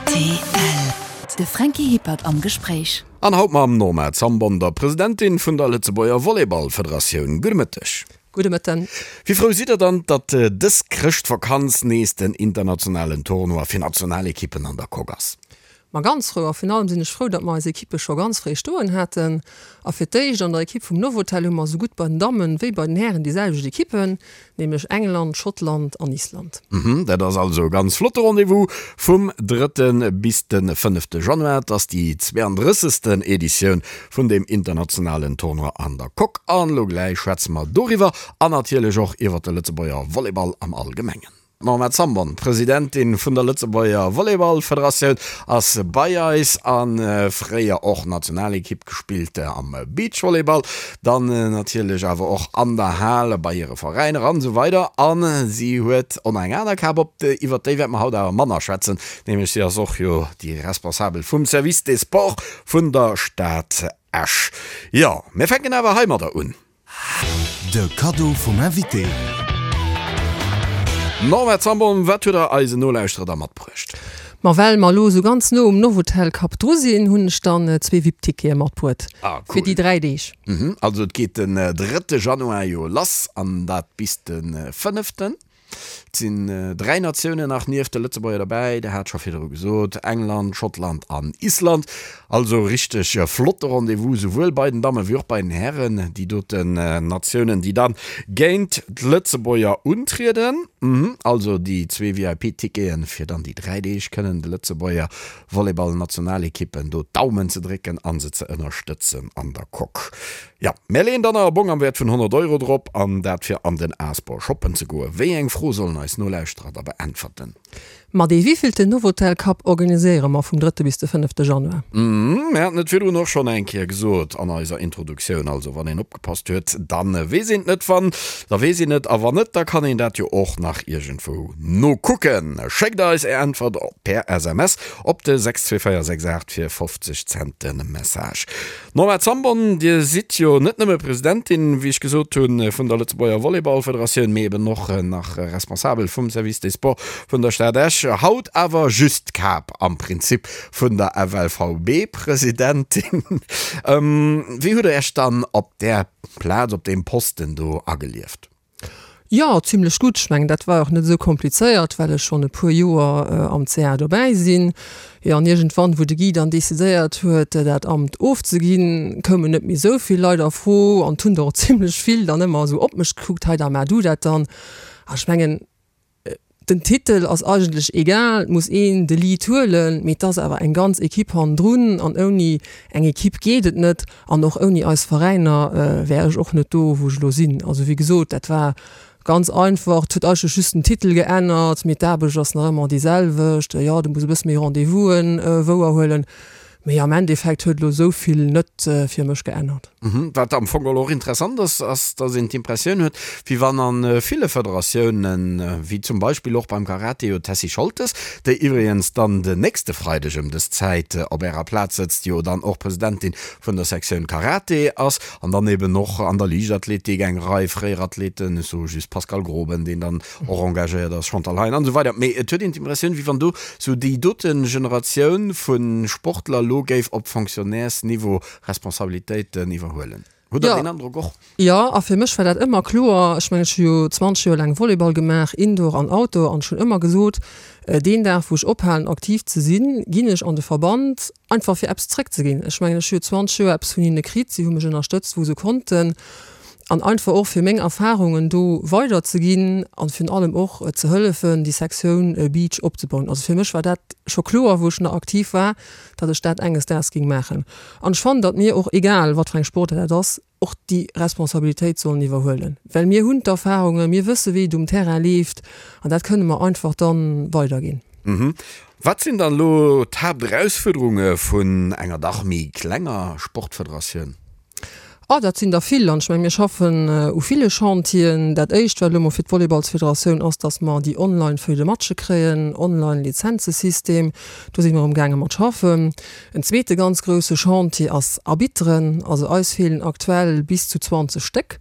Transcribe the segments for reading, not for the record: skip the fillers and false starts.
Rtl. De Franky Hippert am Gespréich. An haut mam Norma Zambon, der Presidentin vun der Lëtzebuerger Volleyballfederatioun. Gudde Mëtteg. Gudde Mëtten. Wéi frou sidd der dann, datt dës Chrëschtvakanz nees den internationalen Tournoi fir Nationalekippen an der Coque ass? Ma ganz frou a virun allem sinn ech frou, datt mer eis Ekippe scho ganz fréi stoen haten. A fir d'éischt an der Ekipp vum Novotel hu mer esou gutt bei den Dammen wéi bei den Hären déi selwecht Ekippen, nämlech England, Schottland an Island. Dat ass also e ganz flotte Rendez-vous vum drëtte bis de fënnefte Januar. Et ass déi 32. Editioun vun deem internationalen Tournoi an der Coque. An elo gläich schwätze mer doriwwer an natierlech och iwwer de Lëtzebuerger Volleyball am Allgemengen. D'Norma Zambon, Presidentin vun der Lëtzebuerger Volleyballfederatioun, ass bei eis a fréier och Nationalekipp gespillt am Beachvolleyball, dann natierlech awer och an der Hal bei hire Veräiner an esou weider. A si huet och nach eng aner Kap op, iwwer déi wäerte mer haut awer manner schwätzen, nämlech si ass och jo déi Responsabel vum Service des Sports vun der Stad Esch. Jo, mir fänken awer heimadder un. De Kaddo vum Invité. Norma Zambon, wat huet der eisen Nolauschterer da matbruecht? Ma well mer elo esou ganz no um Novotel Cup dru sinn, hunn ech dann zwee VIP-Tickete matbruet Ah, cool. fir déi 3 Deeg. Mhm, also et geet den drëtte Januar jo lass an dat bis de fënneften. Et sinn 3 Natiounen nach nieft de Lëtzebuerger derbäi, Der hat scho virdru gesot, England, Schottland an Island. Also richteg flotte Rendez-vous, souwuel bei den Damme wéi och bei den Hären. Déi doten Natiounen, déi dann géint d'Lëtzebuerger untrieden. Also déi zwee VIP-Ticketen, fir dann déi 3 Deeg kënnen de Lëtzebuerger Volleyball-Nationalekippen do d'Daumen ze drécken a se ze ënnerstëtzen an der Coque. Jo, mär leeën dann nach e Bong am Wäert vun 100 Euro drop, an dat fir an den Asbor shoppen ze goen. Wéi eng Fro sollen eis Nolauschterer da beäntwerten? Ma dee wéivilten Novotel Cup organiséiere mer vum drëtte bis de fënnefte Januar? Mär haten et virdrun och schonn eng Kéier gesot an eiser Introduktioun, also wann een opgepasst huet, da weess een et net, wann, da weess een et, a wann net, da kann een dat jo och nach iergendwou nokucken. Schéckt eis är Äntwert per SMS op de 62468 fir 50 Cent de Message. Norma Zambon, Dir sidd jo net nëmme Presidentin, wéi ech gesot hunn, vun der Lëtzebuerger Volleyballfederatioun, mee eben och nach Responsabel vum Service des Sports vun der Stad Esch. Haut awer just d'Kap am Prinzip vun der FLVB-Presidentin. Wéi hutt Der Iech dann op där Plaz, op deem Posten do agelieft? Jo, zimlech gutt. Ech mengen, dat war och net esou komplizéiert, well ech schonn e puer Joer am CA dobäi sinn. Jo, an iergendwann, wou de Guy dann decidéiert huet, dat Amt ofzeginn, koumen net méi esou vill Leit a Fro an et hunn der och zimlech vill dann ëmmer esou op mech gekuckt, hei da maach du dat dann. A ech mengen, Den Titel ass eigentlech egal, et muss een de Lead huelen, mee et ass awer eng ganz Ekipp hannendrun an ouni eng Ekipp geet et net an och ouni eis Veräiner wär ech och net do, wou ech elo sinn. Also wéi gesot, dat war ganz einfach, et huet eigentlech just den Titel geännert, mee d'Aarbecht ass nach ëmmer déi selwecht. Jo, du muss e bësse méi Rendez-vousen wouerhuelen, Mee am Endeffekt huet elo esou vill net fir mech geännert. Wat am Fong och interessant ass, ass dass een d'Impressioun huet, wéi wann a ville Federatiounen, wéi zum Beispill och beim Karate jo d'Tessy Scholtes, déi iwwregens dann den nächste Freideg ëm dës Zäit op Ärer Plaz sëtzt, jo dann och Presidentin vun der Sektioun Karate ass, an dann eben och an der Liichtathletik eng Rei fréier Athleten, ech soe just Pascal Groben, deen dann och engagéiert ass, Chantal Hein an esou weider. Mee et huet een d'Impressioun, wéi wann do sou déi dote Generatioun vu Sportler elo géif op Fonctionnairesniveau Responsabilitéiten iwwerhuelen. Hutt Der deen Androck och? Jo, a fir mech war dat ëmmer kloer. Ech mengen, ech hu jo 20 Joer laang Volleyball gemaach, Indoor an Outdoor, an ech hunn ëmmer gesot, deen Dag wou ech ophalen aktiv ze sinn, ginn ech an de Verband, einfach fir eppes zréckzeginn. Ech mengen, ech hu jo 20 Joer eppes vun hinne kritt, si hu mech ënnerstëtzt wou se konnten. An einfach och fir meng Erfahrungen do weider ze ginn an virun allem och ze hëllefen déi Sektioun Beach opzebauen. Also fir mech war dat scho kloer wou ech nach aktiv war, datt ech dat enges Daags ging maachen. An ech fannen, datt mir och, egal wat fir eng Sportaart dat ass, och déi Responsabilitéit sollen iwwerhuelen, well mir hunn d'Erfahrungen, mir wësse wéi et um Terrain leeft an dat kënne mer einfach dann weiderginn. Wat sinn dann elo d'Haapterausfuerderunge vun enger dach méi klenger Sportfederatioun? Oh, dat sinn der vill. An ech mengen, mir schaffen u ville Chantieren. Dat Éischt, wat elo mol fir d'Volleyballsfederatioun ass, dass mer déi Online-Feuille de matche kréien, Online-Lizenzesystem. Do si mer amgaange mat schaffen. En zweete ganz grousse Chantier ass Arbitteren. Also eis feelen aktuell bis zu 20 Stéck.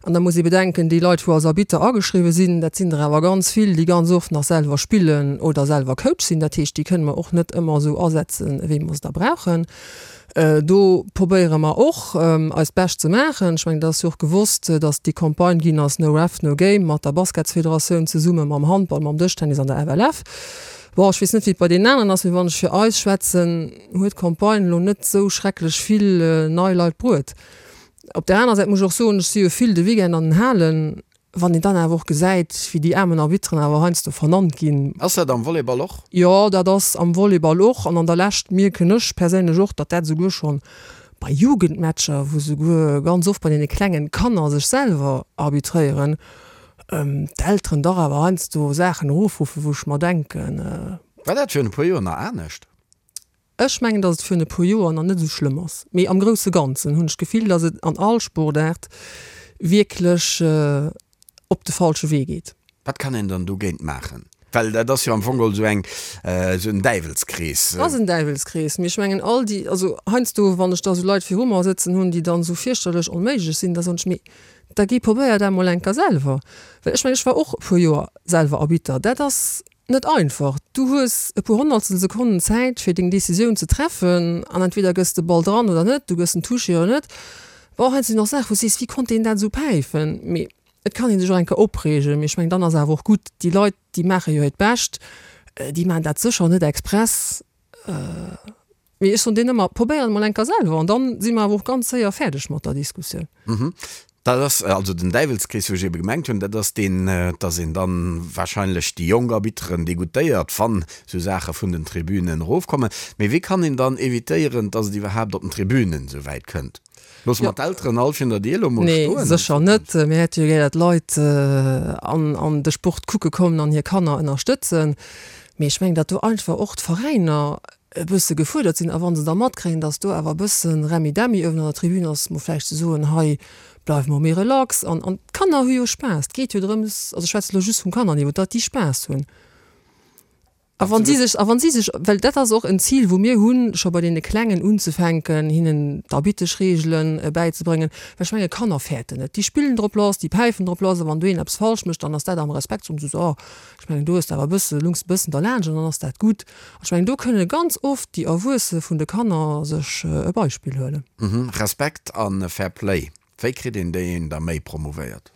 An da muss ee bedenken, déi Leit, wou als Arbitter ageschriwwe sinn, dat sinn der awer ganz vill, déi ganz oft nach selwer spillen oder selwer Coach sinn. Dat heescht, déi kënne mer och net ëmmer esou asetzen, wéi mer se da brauchen. Do probéiere mer och, eist Bescht ze maachen. Ech mengen, et ass jo och gewosst, datt déi Campagne ginn ass No Ref, No Game mat der Basketsfederatioun zesumme mam Handball, mam Dëschtennis an der FLF. Bon, ech weess net, wéi et bei deenen aneren ass, mee wann ech fir eis schwätzen, huet d'Campagne elo net esou schrecklech vill nei Leit bruet. Op där anerer Säit muss ech och soen, ech si jo vill de Weekend an den Halen, wann een dann awer och gesäit, wéi déi aarmen Arbitteren awer heiansdo vernannt ginn. Ass dat am Volleyball och? Jo, dat ass am Volleyball och. An an der Lescht mierken ech perséinlech och, datt dat esouguer schonn bei Jugendmatcher, wou souguer ganz oft bei deene klengen Kanner sech selwer arbitréieren, d'Elteren dach awer heiansdo Saachen erofruffen, wou ech mer denken. War dat virun e puer Joer nach anescht? Ech mengen, datt et virun e puer Joer nach net esou schlëmm ass, mee am grousse Ganzen hunn ech d'Gefill, datt et an all Sportaart wierklech op de falsche Wee geet. Wat kann een dann dogéint maachen? Well dat ass jo am Fong geholl esou eng, esou en Däiwelskrees. Et ass en Däiwelskrees, mee ech mengen all déi, also heiansdo wann ech da esou Leit viru mer sëtzen hunn, déi dann esou fierchterlech onméiglech sinn, da soen ech, mee da géi probéier dat emol eng Kéier selwer. Well ech mengen, ech war och e puer Joer selwer Arbitter, dat ass Net einfach. Du hues e puer honnertstel Sekonnen Zäit fir deng Decisioun ze treffen an entweder gëss de Ball dran oder net, du gëss en Touché oder net. Bon, hei sinn och Saachen wou s sees, wéi konnt deen dat esou päifen? Mee et kann ee sech och eng Kéier opreegen, mee ech mengen dann ass awer och gutt. Déi Leit déi maache jo hiert Bescht, déi maachen dat sécher net express. Mee ech soen deenen ëmmer, probéier et mol eng Kéier selwer an dann si mer awer och ganz séier fäerdeg mat der Diskussioun. Mhm. Dat ass also den Däiwelskrees, wou ech ebe gemengt hunn, dat ass deen, dass een dann wahrscheinlech déi jonk Arbitteren degoûtéiert, wann esou Saache vun den Tribünen erofkommen. Mee wéi kann een dann evitéieren, dass et iwwerhaapt op den Tribünen esou wäit kënnt? Loosse mer d'Elteren all virun der Dier elo mol stoen? Nee, sécher net. Mir hätte jo gär, datt d'Leit an de Sport kucke kommen an hir Kanner ënnerstëtzen. Mee ech mengen, datt do einfach och d'Veräiner e bësse gefuerdert sinn a wa se da matkréien, datt do awer e bësse Remmi-Demmi uewen an der Tribün ass, mol vläicht ze soen, hei bleiwe mer méi relax an an d'Kanner hu jo Spaass. Et geet jo drëms, also ech schwätze elo just vum Kannerniveau, datt déi Spaass hunn. A wann si sech, a wann si sech, well dat ass och en Zil wou mir hunn, scho bei deene Klengen unzefänken, hinnen d'Arbitteschreegelen bäizebréngen, well ech menge Kanner fäerten net, déi spillen drop lass, déi päifen drop lass a wann do een eppes falsch mécht, dann ass dat am Respekt, soen se so, ech mengen do hues de awer e bësse, lungs e bëssen derlaanscht an dann ass dat gutt. Ech mengen, do kënne ganz oft déi Erwuesse vun de Kanner sech e Beispill huelen. Respekt a Fair Play, wéi kritt een déi da méi promouvéiert?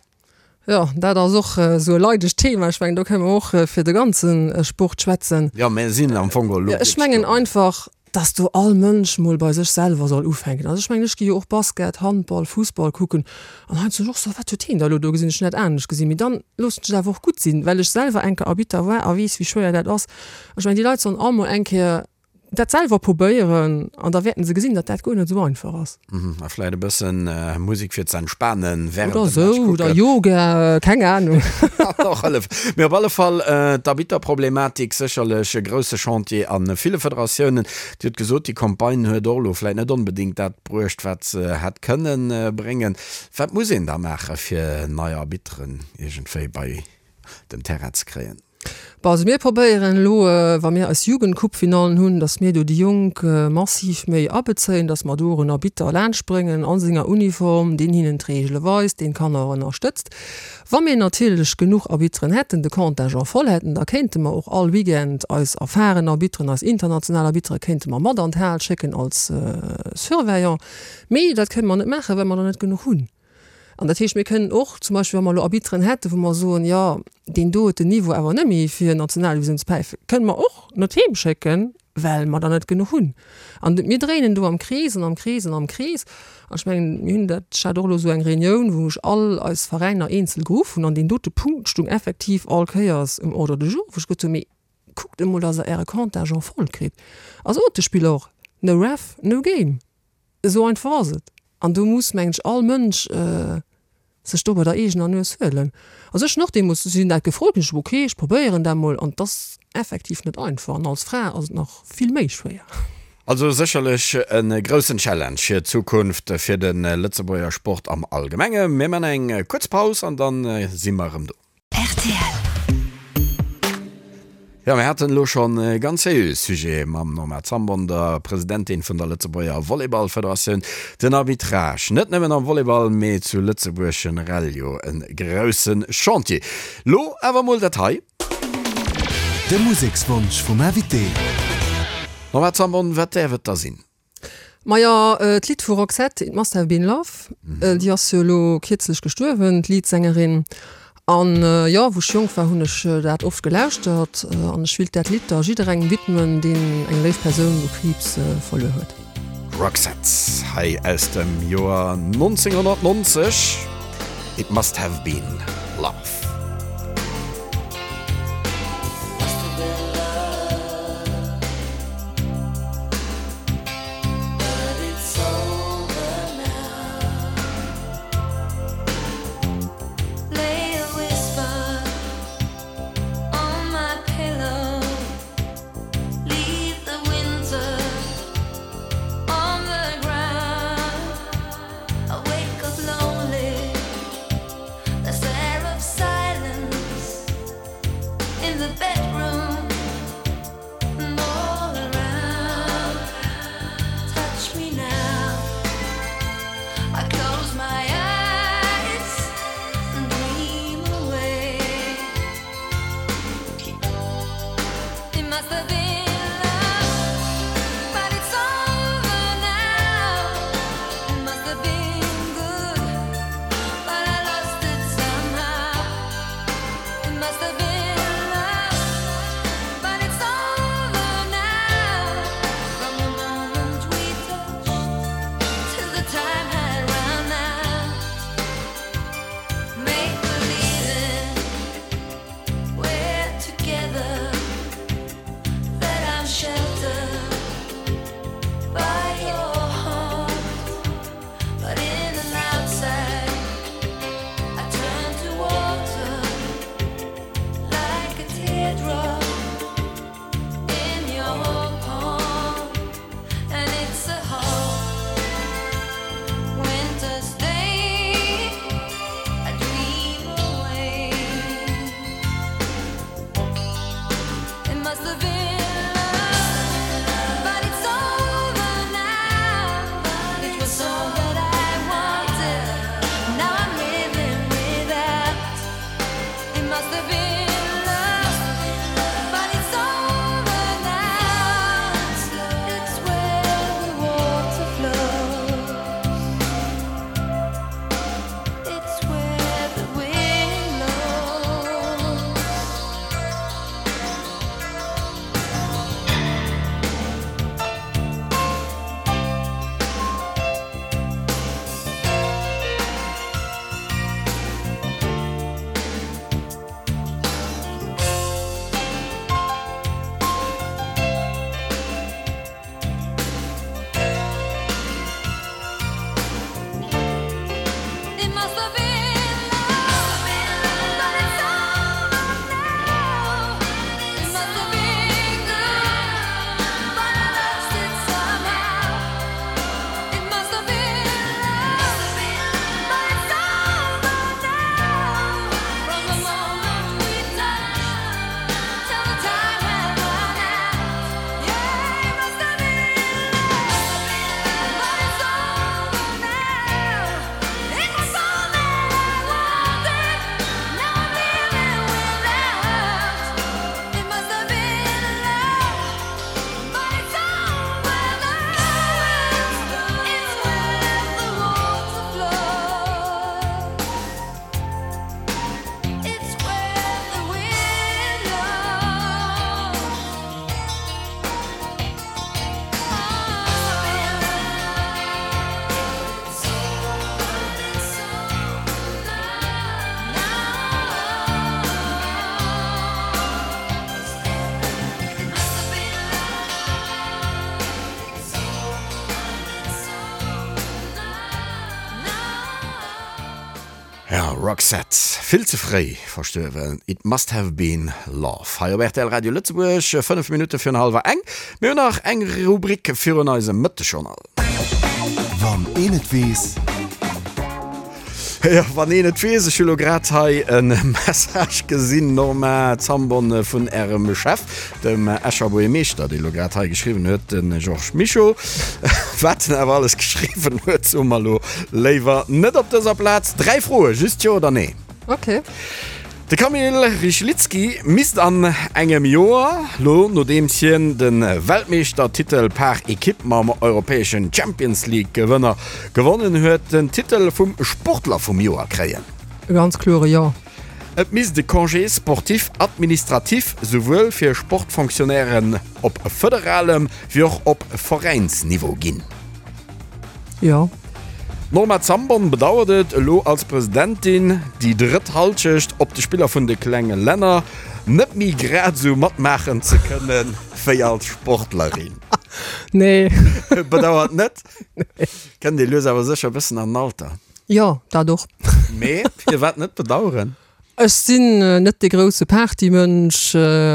Jo, dat ass och esou e leidegt Thema. Ech mengen, do kënne mer och fir de ganze Sport schwätzen. Jo, mir sinn am Fong elo. Ech mengen einfach, dass do all Mënsch mol bei sech selwer soll ufänken. Also ech mengen, ech gi jo och Basket, Handball, Fussball kucken an heiansdo sinn ech och esou, wat huet heen da elo do gesinn, ech hunn dat anescht gesinn. Mee dann loossen ech et awer och gutt sinn, well ech selwer eng Kéier Arbitter war a weess, wéi schwéier dat ass. Ech mengen, déi Leit sollen all mol eng Kéier dat selwer probéieren an da wäerten se gesinn, datt dat guer net esou einfach ass. A vläit e bëssen Musek fir ze entspanen während dem Match kucken. Oder esou, oder Yoga, keng Ahnung. Kann och hëllefen. Mee op alle Fall, d'Arbitterproblematik sécherlech e grousse Chantier a ville Federatiounen. Dir hutt gesot, déi Campagne huet och elo vläit net onbedéngt dat bruecht, wat se hätt kënnen bréngen. Wat muss een da maachen, fir nei Arbitteren iergendwéi bei den Terrain ze kréien? Bon, also mir probéieren elo, wa mir eis Jugendcoupe-Finallen hunn, datt mir do déi Jonk massiv méi abezéien, datt mer do och en Arbitter laanschtbréngen a senger Uniform, deen hinnen d'Reegele weist, deen d'Kanner och ënnerstëtzt. Wa mir natierlech genuch Arbitteren hätten, de Contingent voll hätten, da kéinte mer och all Weekend eis erfahren Arbitteren, eis international Arbittere kéinte mer mat an d'Hal schécken als Surveillant. Mee dat kënne mer net maachen, well mer der net genuch hunn. An dat heescht, mir kënnen och zum Beispill, wa mer elo Arbitteren hätten, wou mer soen, jo, deen do huet den Niveau awer net méi fir Nationaldivisioun ze päifen, kënnen mer och net heem schécken, well mer der net genuch hunn. An mir dréinen do am Krees an am Krees an am Krees. An ech mengen, mir hunn dat, ech hat och elo esou eng Reunioun, wou ech all eis Veräiner eenzel geruff hunn an deen dote Punkt stung effektiv all Kéiers um Ordre du jour, wou ech gesot hunn, mee kuckt emol, datt Der Äre Contingent voll kritt. A sot de Spiller och, no ref, no game. Esou einfach ass et. An do muss, mengen ech, all Mënsch sech do bei der eegener Nues huelen. Also ech hunn och deemools, si hunn dat gefrot, hunn ech gesot, okay, ech probéieren dat mol. An et ass effektiv net einfach. An als Fra ass et nach vill méi schwéier. Also sécherlech e groussen Challenge fir d'Zukunft fir de Lëtzebuerger Sport am Allgemenge. Mir man eng kuerz Paus an dann si mer erëm do. Rtl. Jo, mir haten elo schonn e ganz seriöe Sujet mam Norma Zambon, der Presidentin vun der Lëtzebuerger Volleyballfederatioun. Den Arbitrage, net nëmmen am Volleyball, mee zu Lëtzebuerg generell jo e grousse Chantier. Lo awer mol dat hei. De Musekswonsch vum Invité. Norma Zambon, wat däerf et da sinn? Majo, d'Lidd vu Roxette, It Must Have Been Love, déi ass jo elo kierzlech gestuerwen, d'Leadsängerin. An jo, wou ech jonk war, hunn ech dat oft gelauschtert. An ech willt dat Lidd da jidderengem widmen, deen eng léif Persoun u Kriibs verluer huet. Roxette, hei aus dem Joer 1990, It Must Have Been Love. Ja, Roxette, vill ze fréi verstuerwen, It Must Have Been Love hei op rtl Radio Lëtzebuerg, 5 Minutte virun hallwer eng. Mir hunn nach eng Rubrik virun eisem Mëttegjournal. Wann een et weess. Jo, wann een et weess. Ech hu lo grad hei e Message gesinn, Norma Zambon, vun Ärem Chef, dem Escher Buergermeeschter, dee lo grad hei geschriwwen huet, de Georges Mischo. Wat en awer alles geschriwwen huet, soe mer lo léiwer net op dëser Plaz. 3 Froe, just Jo oder Nee. Ok. De Kamil Rychlicki misst an engem Joer, lo nodeems hien de Weltmeeschtertitel par Ekipp mam europäeschen Champions League Gewënner gewonnen huet, den Titel vum Sportler vum Joer kréien. E ganz kloere Jo. Et misst e Congé sportif administratif souwuel fir Sportfonctionnairen op federalem wéi och op Veräinsniveau ginn. Jo. D'Norma Zambon bedauert et, elo als Presidentin déi drëtt Halschecht op de Spiller vun de klenge Länner net méi grad esou matmaachen ze kënne wéi als Sportlerin. Nee. Bedauert net? Kënnt ee lues awer sécher e bëssen an den Alter. Jo, dat och. Mee firwat net bedaueren? Ech sinn net dee grousse Partymënsch,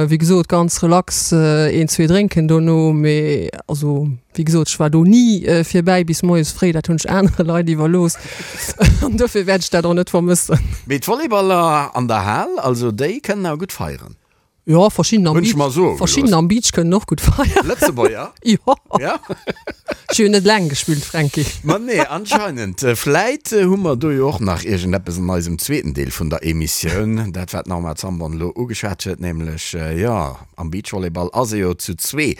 wéi gesot ganz relax een, zwee drénken dono, mee also wéi gesot ech war do ni fir bäi bis moies fréi, dat hunn ech anere Leit iwwerlooss an dofir wäert ech dat och net vermëssen. Mee d'Volleyballer an der Hal, also déi kënnen awer gutt feieren. Jo, verschidden am Beach, verschidden am Beach kënnen och gutt feieren. Lëtzebuerger? Jo. Ja. Ech hu jo net laang gespillt, Fränki. Ma nee, anscheinend. Vläit hu mer do jo och nach iergendeppes an eisem zweeten Deel vun der Emissioun. Dat, wat d'Norma Zambon elo ugeschwat huet, nämlech, jo, am Beachvolleyball ass ee jo zu zwee.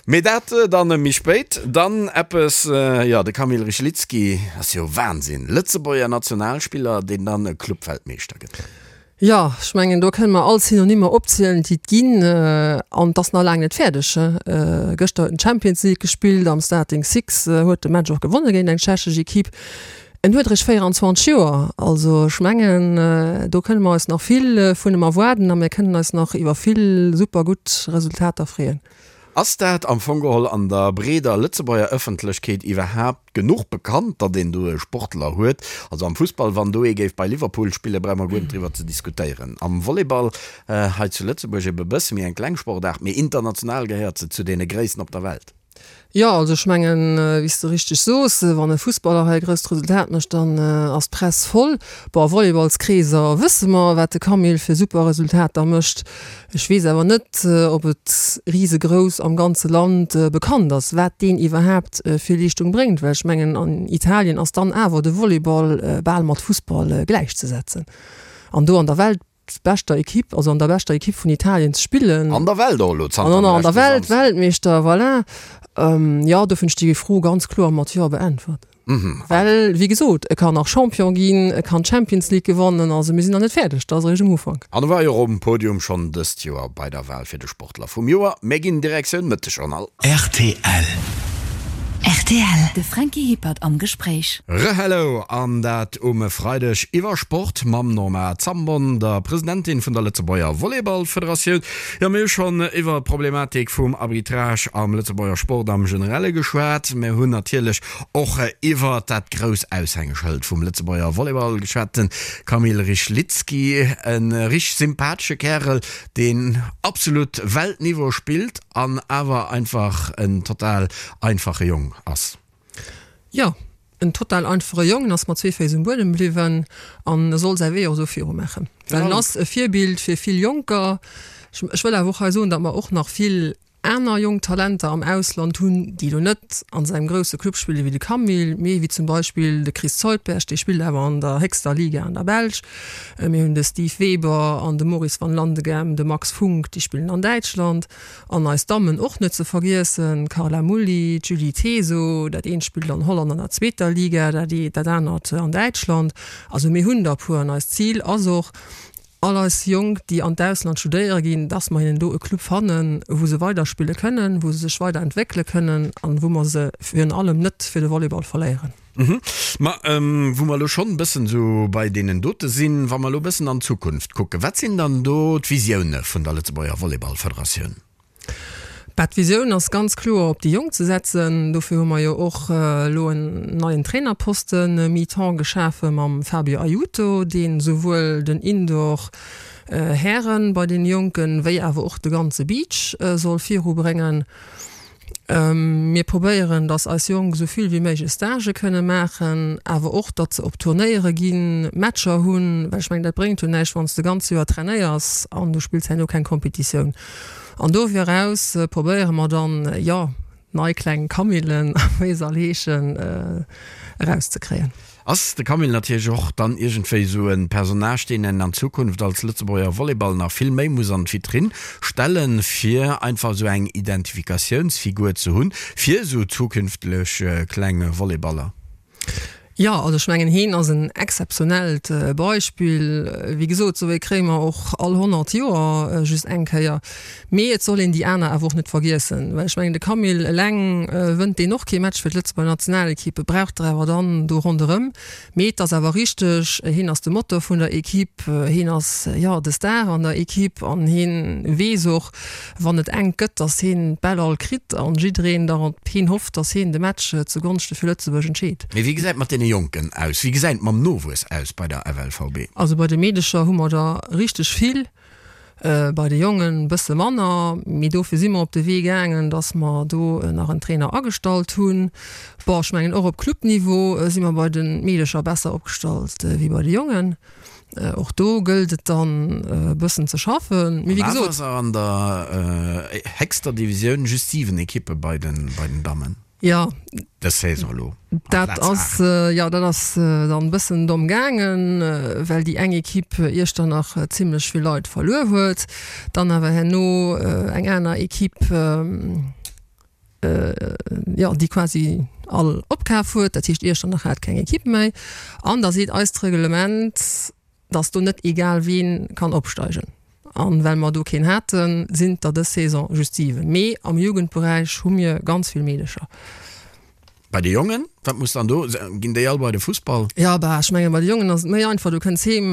Mee dat dann méi spéit. Dann eppes, jo, de Kamil Rychlicki ass jo Wahnsinn. Lëtzebuerger Nationalspiller, deen dann Clubweltmeeschter gëtt. Jo, ech mengen, do kënne mer all Synonymer opzielen, déi et ginn. An et ass nach laang net fäerdeg. Gëschter huet en d'Champions League gespillt am Starting Six, huet de Match och gewonne géint eng tschechesch Equipe. En huet eréischt 24 Joer. Also ech mengen, do kënne mer eis nach vill vun em erwaarden a mir kënnen eis nach iwwer vill super gutt Resultater freeën. Ass dat am Fong geholl an der breeder Lëtzebuerger Ëffentlechkeet iwwerhaapt genuch bekannt, datt een do e Sportler huet? Also am Fussball, wann do ee géif bei Liverpool spillen, brauche mer guer net driwwer ze diskutéieren. Am Volleyball hei zu Lëtzebuerg ebe bësse méi eng kleng Sportaart, mee international gehéiert se zu deene gréissten op der Welt. Jo, also ech mengen, wéi s de richteg soos, wann e Fussballer hei e grousst Resultat mécht, dann ass d'Press voll. Bon, a Volleyballskreeser wësse mer, wat de Camille fir super Resultater mécht. Ech weess awer net, ob et risegrouss am ganze Land bekannt ass, wat deen iwwerhaapt fir Leeschtung bréngt, well ech mengen, an Italien ass dann awer de Volleyball bal mat Fussball gläichzesetzen. An do an der weltbeschter Ekipp, also an der beschter Ekipp vun Italien ze spillen. An der Welt och elo zanter dem leschte Samsden. An der Welt, Weltmeeschter, voilà. Jo, dofir hunn ech déi Fro ganz kloer mat Jo beäntwert. Well, wéi gesot, e kann nach Champion ginn, e kann d'Champions League gewannen. Also mir sinn nach net fäerdeg, dat ass eréischt um Ufank. An e war jo och um Podium schonn dëst Joer bei der Wal fir de Sportler vum Joer. Mir ginn Direktioun Mëttegjournal. Rtl. Rtl, De Franky Hippert am Gespréich. Re-Hello an dat um Freideg iwwer Sport mam Norma Zambon, der Presidentin vun der Lëtzebuerger Volleyballfederatioun. Jo, mir hu schonn iwwer d'Problematik vum Arbitrage am Lëtzebuerger Sport am Generelle geschwat. Mir hunn natierlech Och iwwer dat grouss Aushängeschëld vum Lëtzebuerger Volleyball geschwat, den Kamil Rychlicki, e richteg sympathesche Kärel, deen absolut Weltniveau spillt an awer einfach en total einfache Jong ass. Jo, en total einfache Jong, en ass mat zwee Féiss um Buedem bliwwen an e soll säi Wee och esou viru maachen, well en ass e Virbild fir vill Jonker. Ech wëll awer och hei soen, datt mer och nach vill aner jonk Talenter am Ausland hunn, déi elo net an sengem grousse Club spille wéi de Camille, mee wéi zum Beispill de Chris Zuidberg, dee spillt awer an der héchster Liga an der Belsch. Mir hunn de Steve Weber an de Maurice Van Landeghem, de Max Funck, déi spillen an Däitschland. An eis Dammen och net ze vergiessen, d'Carla Mulli, d'Julie Teso, dat eent spillt an Holland an der zweeter Liga, dat anert an Däitschland. Also mir hunn der e puer an eist Zil ass och, all eis Jonk, déi an d'Ausland studéiere ginn, dass mer hinnen do e Club fannen, wou se weiderspille kënnen, wou se sech weiderentwéckele kënnen an wou mer se virun allem net fir de Volleyball verléieren. Ma wou mer elo schonn e bëssen esou bei deenen dote sinn, wa mer elo e bëssen an d'Zukunft kucken, wat sinn dann do d'Visioune vun der Lëtzebuerger Volleyballfederatioun? Bah, d'Visioun ass ganz kloer op déi Jonk ze setzen. Dofir hu mer jo och elo en neien Trainerposten mi-temps geschafe mam Fabio Aiuto, deen souwuel den Indoor Hären bei den Jonken, wéi awer och de ganze Beach soll virubréngen. Mir probéieren, datt eis Jonk esou vill wéi méiglech Stagë kënne maachen, awer och, datt se op Turnéiere ginn, Matcher hunn, well ech mengen, dat bréngt jo näischt, wann s de ganz Joer trainéiers an du spills herno keng Competitioun. An dofir eraus probéiere mer dann, jo, nei kleng Camillen, wéi se all heeschen, erauszekréien. Ass de Camille natierlech och dann iergendwéi esou e Personnage, deen een an Zukunft als Lëtzebuerger Volleyball nach vill méi muss an d'Vitrinn stellen, fir einfach esou eng Identifikatiounsfigur ze hunn, fir esou zukünftlech kleng Volleyballer? Jo, also ech mengen, heen ass en exzeptionellt Beispill. Wéi gesot, esou ee kréie mer och all 100 Joer just eng Kéier. Mee et soll een déi aner awer och net vergiessen, well ech mengen, de Camille eleng wënnt deen och kee Match fir d'Lëtzebuerger Nationalequipe, e brauch der awer dann do ronderëm. Mee et ass awer richteg, hien ass de Motor vun der Equipe, hien ass, jo, de Star an der Equipe an hien weess och, wann et enk gëtt, datt hien d'Bäll all kritt an jiddereen da op hien hofft, datt hien de Match zu Gonschte fir Lëtzebuerg entscheet. Mee wéi gesäit et mat deene Jonken aus? Wéi gesäit et mam Nowuess aus bei der FLVB? Also bei de Meedecher hu mer der richteg vill. Bei de Jongen bësse manner, mee dofir si mer op de Wee gaangen, dass mer do nach en Trainer agestallt hunn. Bon, ech mengen och op Clubniveau si mer bei de Meedecher besser opgestallt wéi bei de Jongen. Och do gëllt et dann e bëssen ze schaffen. Mee wéi gesot. An awer ass an der héchster Divisioun just 7 Ekippe bei den Dammen. Jo. Dës Saison elo. Dat ass, jo, dat ass dann e bëssen domm gaangen, well déi eng Equipe Iechternach zimlech vill Leit verluer huet, dann awer herno eng aner Equipe, jo, déi quasi all opkaf huet. Dat heescht, Iechternach hat keng Equipe méi. An da seet eist Reglement, dass do net egal ween kann opsteigen. An well mer do keen haten, sinn der dës Saison just 7. Mee am Jugendberäich hu mir ganz vill Meedecher. Bei de Jongen, wat muss dann do, ginn déi all bei de Fussball? Jo, bah, ech mengen bei de Jongen ass et méi einfach, du kënns heem,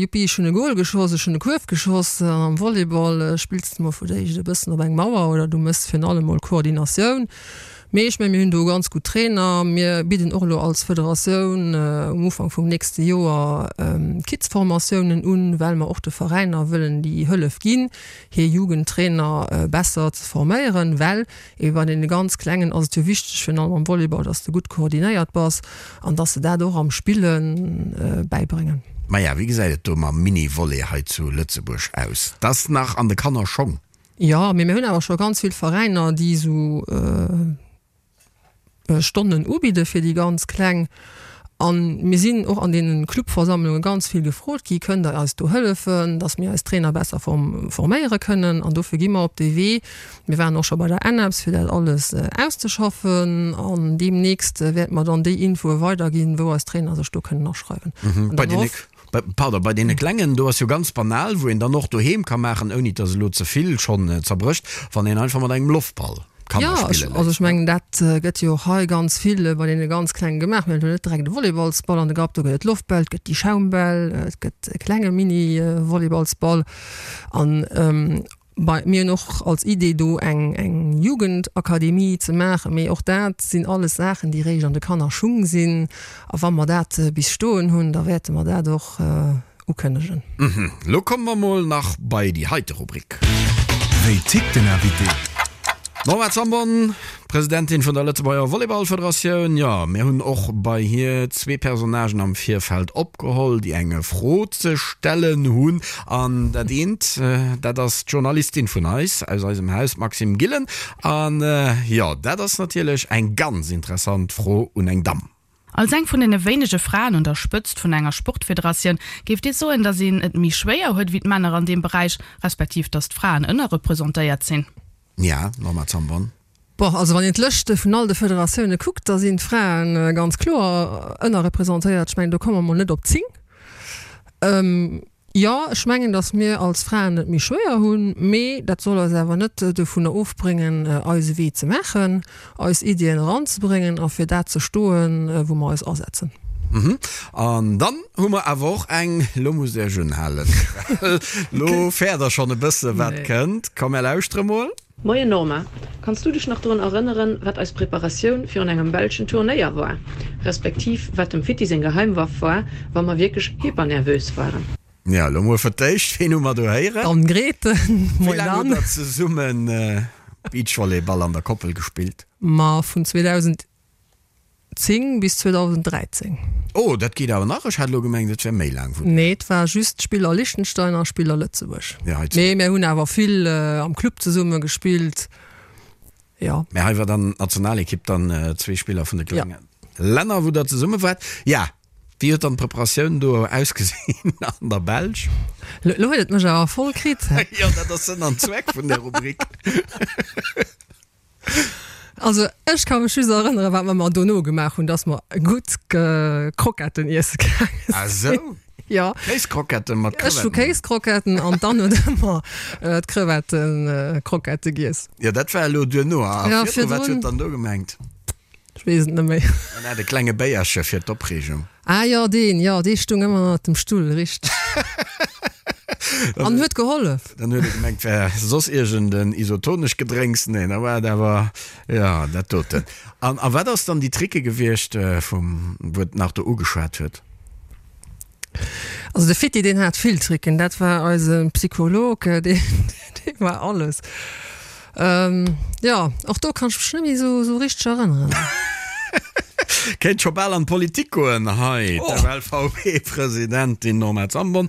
Juppi, ech hunn e Goal geschoss, ech hunn e Kuerf geschoss. An am Volleyball spills de mol fir d'éischt e bëssen op eng Mauer oder du méchs virun allem mol Koordinatioun. Mee ech mengen, mir hunn do ganz gutt Trainer. Mir bidden och elo als Federatioun um Ufank vum nächste Joer Kids-Formatiounen un, well mer och de Veräiner wëllen déi Hëllef ginn, hir Jugendtrainer besser ze forméieren. Well ebe bei deene ganz Klengen ass et jo wichteg, virun allem am Volleyball, dass de gutt koordinéiert bass an dass se dat och am Spille bäibréngen. Maja, wéi gesäit et do mam Mini-Volley hei zu Lëtzebuerg aus? Dat ass nach an de Kannerschong. Jo, mee mir hunn awer scho ganz vill Veräiner, déi esou Stonnen ubidde fir déi ganz Kleng. A mir sinn och an deene Clubversammlunge ganz vill gefrot gi, Kënnt Der eis do hëllefen, datt mir eis Trainer besser forméiere kënnen? An dofir gi mer op dee Wee. Mir waren och scho bei der ENEPS, fir dat alles auszeschaffen. An deemnächst wäerte mer dann déi Infoe weiderginn, wou eis Trainer sech do kënnen aschreiwen. An dann hoff. Pardon, bei deene Klengen, do ass jo ganz banal, wou een dann och doheem ka maachen, ouni dass elo ze vill schonn zerbrécht, wann een einfach mat engem Loftball Kanner spille léisst. Jo, also ech mengen, dat gëtt jo och hei ganz vill bei deene ganz Klengen gemaach. Mir hunn elo net direkt e Volleyballsball an de Grapp, do gëtt et Loftbäll, et gëtt déi Schaumbäll, et gëtt e klenge Mini-Volleyballsball an Bei mir hunn och als Idee do eng eng Jugendakademie ze maachen, mee och dat sinn alles Saachen, déi réischt an de Kannerschung sinn. A wa mer dat bis stoen hunn, da wäerte mer dat och ukënnegen. Lo komme mer mol nach bei déi heite Rubrik. Wéi tickt den Invité? D'Norma Zambon, Presidentin vun der Lëtzebuerger Volleyballfederatioun. Jo, mir hunn och bei hir zwee Personnagen am Virfeld opgeholl, déi eng Fro ze stellen hunn. An dat eent, dat ass d'Journalistin vun eis, aus eisem Haus, d'Maxime Gillen. An jo, dat ass natierlech eng ganz interessant Fro un eng Damm. Als eng vun deene wéinege Fraen un der Spëtzt vun enger Sportfederatioun, géift Dir soen, datt een et méi schwéier huet wéi d'Männer an deem Beräich, respektiv datt d'Fraen ënnerrepresentéiert sinn? Ja, Norma Zambon. Bon, also wann een d'Lëschte vun all de Federatioune kuckt, da sinn d'Frae ganz kloer ënnerrepresentéiert. Ech mengen, do komme mer mol net op 10. Jo, ech mengen, datt mir als Fraen et méi schwéier hunn, mee dat soll eis awer net dovunner ofbréngen, eise Wee ze maachen, eis Iddien eranzebréngen a fir dat ze stoen, wou mer eis asetzen. An dann hu mer awer och eng, lo musst Iech unhalen, well lo fäert Der schonn e bësse wat kënnt. Komm, mär lauschtere mol. Moien Norma, kanns du dech nach drun erënneren, wat eis Preparatioun virun engem belschen Turnéier war, respektiv wat dem Fitti seng Geheimwaff war, wa mer wierklech hypernervös waren? Ja, lo mol fir d'éischt, ween hu mer do héieren? D'Anne Grethen. Wéi laang hutt der zesummen. Beachvolleyball an der Koppel gespillt? Ma vun 2010 bis 2013. Oh, dat geet awer nach. Ech hat elo gemengt, et wär méi laang. Nee, et war just Spiller Liechtenstein a Spiller Lëtzebuerg. Ja, hei zu. Mee mir hunn awer vill am Club zesumme gespillt. Jo. Mä hei war dann d'Nationalekipp, dann zwee Spiller vun de klenge Länner, wou der zesumme waart. Ja, wéi huet dann d'Preparatioun do ausgesinn an der Belsch? Lo huet et mech awer voll kritt. Jo, dat ass Sënn an Zweck vun der Rubrik. Also ech ka mech just erënneren, wat mer mer dono gemaach hunn, dass mer gutt Kroketten iesse gaange sinn. Ah sou? Jo. Kéiskroketten mat Crevetten? Ech hu Kéiskroketten an d'Anne huet ëmmer d'Crevettenkrockette giess. Jo, dat war elo duerno. A virdru, wat huet dann do gemengt? Ech weess et net méi. En hat e klenge Béierche fir d'Opreegung. Ah jo, deen, jo, dee stung ëmmer ënnert dem Stull, richteg. An huet gehollef. Dann huet e gemengt, wär soss iergend en isotonesch Gedrénks. Nee, da war et awer, jo, dat doten. An a wat ass dann déi Tricke gewiescht, vum, wou et nach do ugeschwat huet? Also de Fitti, deen hat vill Tricken. Dat war eise Psycholog, deen, dee war alles. Jo, och do kann ech mech net méi esou, esou richteg erënneren. Kéint scho bal an d'Politik goen hei, d'FLVB-Presidentin Norma Zambon.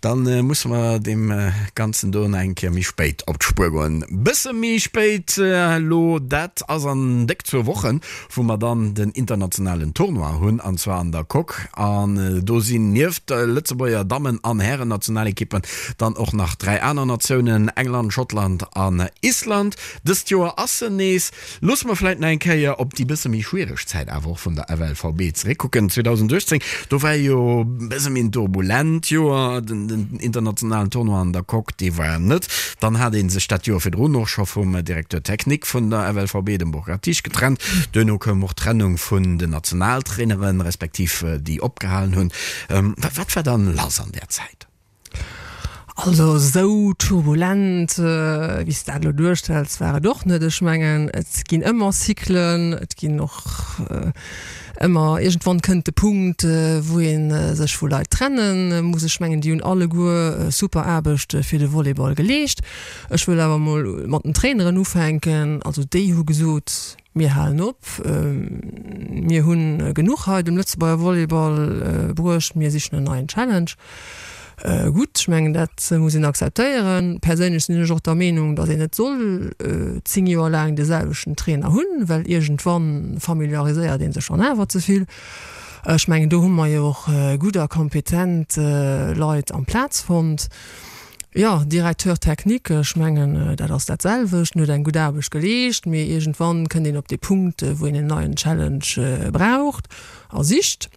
Dann musse mer deem Ganzen do nach eng Kéier méi spéit op d'Spuer goen. Bësse méi spéit elo, dat ass an déck zwou Wochen, wou mer dann den internationalen Tournoi hunn, an zwar an der Coque. An do sinn nieft de Lëtzebuerger Dammen an Hären-Nationalekippen dann och nach 3 aner Natiounen, England, Schottland an Island. Dëst Joer ass se nees. Loosse mer vläit nach eng Kéier op déi bësse méi schwiereg Zäit awer och vun der FLVB zeréckkucken. 2018, do war jo bësse méi en turbulent Joer. Den internationalen Tournoi an der Coque, dee war net. Dann hat ee sech dat Joer virdrun och scho vum Directeur technique vun der FLVB, dem Burkhard Tisch, getrennt. Duerno koum och d'Trennung vun den Nationaltraineren, respektiv déi opgehalen hunn. Wat war dann lass an där Zäit? Also esou turbulent, wéi s de dat elo duerstells, war et och net. Ech mengen, et ginn ëmmer Cyclen, et ginn och ëmmer, iergendwann kënnt de Punkt, wou ee sech vu Leit trenne muss. Ech mengen, déi hunn alleguer super Aarbecht fir de Volleyball geleescht. Ech wëll awer emol mat den Traineren ufänken. Also déi hu gesot, Mir halen op, mir hu genuch hei dem Lëtzebuerger Volleyball bruecht, mir sichen en neien Challenge. Gutt, ech mengen dat muss een akzeptéieren. Perséinlech sinn ech och der Meenung, datt een net soll 10 Joer laang de selwechten Trainer hunn, well iergendwann familiariséiert ee sech dann awer ze vill. Ech mengen do hu mer jo och gutt a kompetent Leit amplaz fonnt. Jo, Directeur technique, ech mengen, dat ass dat selwecht. En huet eng gutt Aarbecht geleescht, mee iergendwann kënnt een op dee Punkt, wou een en neien Challenge braucht a sicht.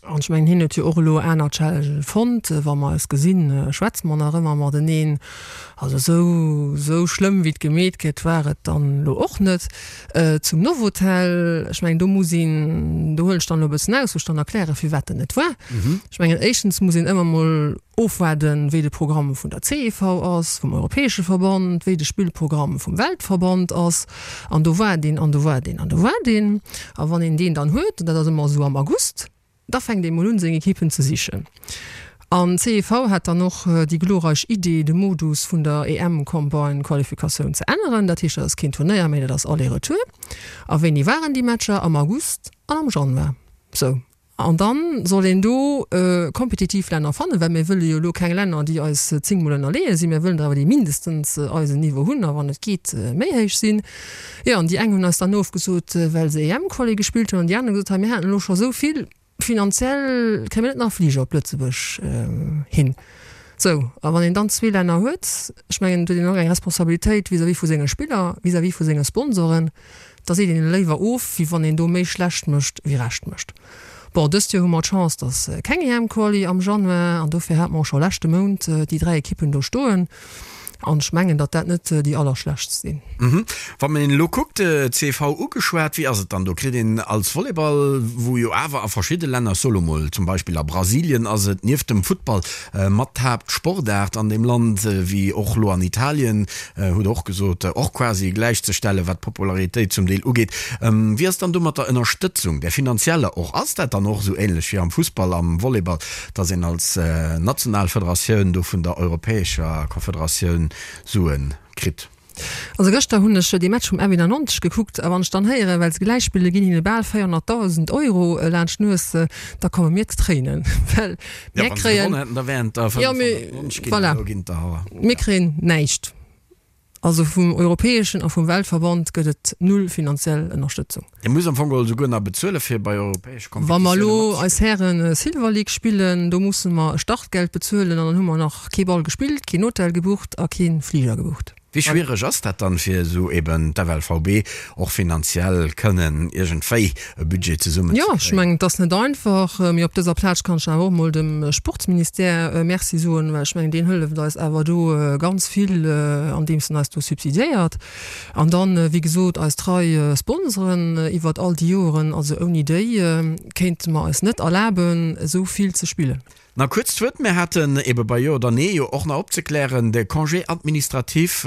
An ech mengen, hien huet jo och elo aner Challengen fonnt. Wa mer eis gesinn, schwätze mer nach ëmmer mateneen. Also esou, esou schlëmm, wéi et gemeet gëtt, war et dann elo och net. Zum Novotel, ech mengen, do muss een, do huelen ech dann elo e bëssen aus, wou ech dann erklären, firwat dat net war. Ech mengen, éischtens muss een ëmmer mol Ofwaarden, wéi de Programm vun der CEV ass, vum europäesche Verband, wéi de Spillprogramm vum Weltverband ass. An do waart een, an do waart een, an do waart een. A wann een deen dann huet, dat ass ëmmer esou am August, da fänkt ee mol un, seng Ekippen ze sichen. An d'CEV hat dann och déi glorreich Idee, de Modus vun der EM-Combine-Qualifikatioun ze änneren. Dat heescht, dat ass keen Turnéier méi, dat ass Aller-Retour. A wéini waren déi Matcher? Am August an am Januar. Sou. An dann soll een do kompetitiv Länner fannen, well mir wëlle jo elo keng Länner, déi eis zéngmol ënnerleeë sinn. Mir wëllen der awer, déi mindestens eisen Niveau hunn a wann et geet, méi héich sinn. Jo, an déi eng hunn eis dann ofgesot, well se EM-Quali gespillt hunn, an déi aner hunn gesot, hei mir haten elo scho esou vill, finanziell kréie mir net nach Fliger op Lëtzebuerg hin. Sou, a wann een dann zwee Länner huet, ech mengen, et huet een och eng Responsabilitéit vis-à-vis vu senge Spiller, vis-à-vis vu senge Sponsoren, Da seet een léiwer of, wéi wann een do méi schlecht mécht, wéi recht mécht. Bon, dëst Joer hu mer d'Chance, dass keng EM-Quali am Januar, an dofir hate mer och scho leschte Mount déi 3 Ekippen do stoen. An ech mengen, datt dat net déi allerschlechtst sinn. Wann een elo kuckt, CV ugeschwat, wéi ass et dann do? Kritt een als Volleyball, wou jo awer a verschidde Länner, ech soe lo mol zum Beispill a Brasilien ass et nieft dem Futtball mat d'Haaptsportaart an deem Land, wéi och lo an Italien, hutt Der och gesot, och quasi gläichzestellen, wat d'Popularitéit zum Deel ugeet. Wéi ass dann do mat der Ënnerstëtzung, där finanzieller och? Ass dat dann och esou ähnlech wéi am Fussball, am Volleyball, dass een als national Federatioun do vun der europäescher Confederatioun Sue kritt? Also gëschter hunn ech dee Match vum F91 gekuckt a wann ech dann héieren, well se gläich spillen, ginn hinne bal 400.000 Euro laanscht d'Nues, da komme mir d'Tréinen, well mir kréien, jo mee voilà, mir kréien näischt. Also vum europäeschen a vum Weltverband gëtt et null finanziell Ënnerstëtzung. Dir musst am Fong geholl souguer nach bezuele fir bei europäesche Wa mer Kompetitioune elo eis matzespillen. Hären Silver League spillen, do musse mer e Startgeld bezuelen an dann hu mer nach kee Ball gespillt, keen Hotel gebucht a kee Fliger gebucht. Wéi schwiereg ass dat dann, fir esou eben d'FLVB och finanziell kënnen iergendwéi e Budget zesummen ze Jo, ech kréien? mengen, et ass net einfach, mee op dëser Plaz kann ech awer och emol dem Sportsministère Merci soen, well ech mengen, deen hëlleft eis awer do ganz vill, andeems en eis do subsidiéiert. An dann, wéi gesot, eis trei Sponsoren iwwert all déi Joeren. Also ouni déi kéinte mer eis net erlaben, esou vill ze spillen. Nach kuerz d'Wuert, mir haten ebe bei Jo oder Nee jo och nach opzeklären, de Congé administratif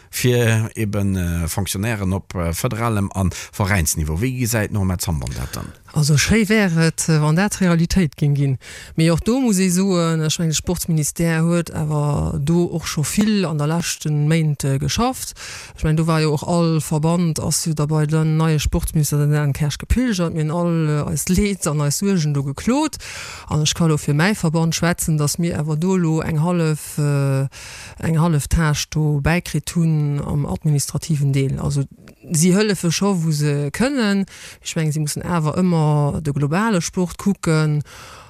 fir ebe Fonctionnairen op federalem a Veräinsniveau. Wéi gesäit d'Norma Zambon dat dann? Also schéi wär et, wann dat Realitéit géing ginn. Mee och do muss ee soen, ech mengen, de Sportsministère huet awer do och scho vill an der leschte Méint geschafft. Ech mengen, do war jo och all Verband ass jo da bei den neie Sportsminister, den Dan Kersch, gepilgert. Mir hunn all eist Leed an eis Suergen do geklot. An ech ka elo fir mäi Verband schwätzen, datt mir awer do elo eng hallef, eng hallef Tâche do bäikritt hunn am administrativen Deel. Also si hëllefe scho wou se kënnen. Ech mengen, si mussen awer ëmmer de globale Sport kucken.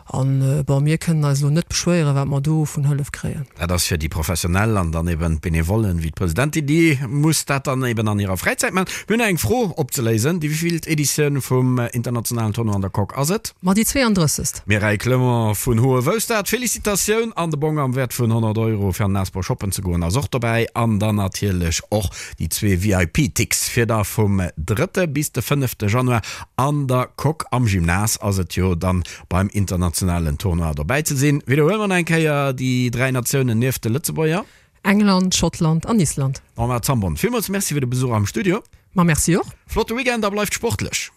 An, bon, mir kënnen eis elo net beschwéieren, wat mer do vun Hëllef kréien. Dat ass fir déi Professionell an dann eben d'Benevollen, wéi d'Presidentin, déi muss dat dann eben an hirer Fräizäit maachen. Mir hunn nach eng Fro opzeléisen, Déi wéivillt Editioun vum internationalen Tournoi an der Coque ass et? Ma déi 32. Mireille Clement vun Hohewoustert, Felicitatioun an de Bong am Wäert vun 100 Euro fir an den Asbl shoppen ze goen ass och dobäi an dann natierlech och déi zwee VIP-Ticks fir da vum drëtte bis de fënnefte Januar an der Coque am Gymnase ass et jo dann beim internationalen Tournoi dobäi ze sinn. Widderhuele mer nach eng Kéier déi 3 Natiounen nieft de Lëtzebuerger. England, Schottland an Island. Norma Zambon, villmools Merci fir de Besuch am Studio. Ma merci och. Flotte Weekend a bleift sportlech.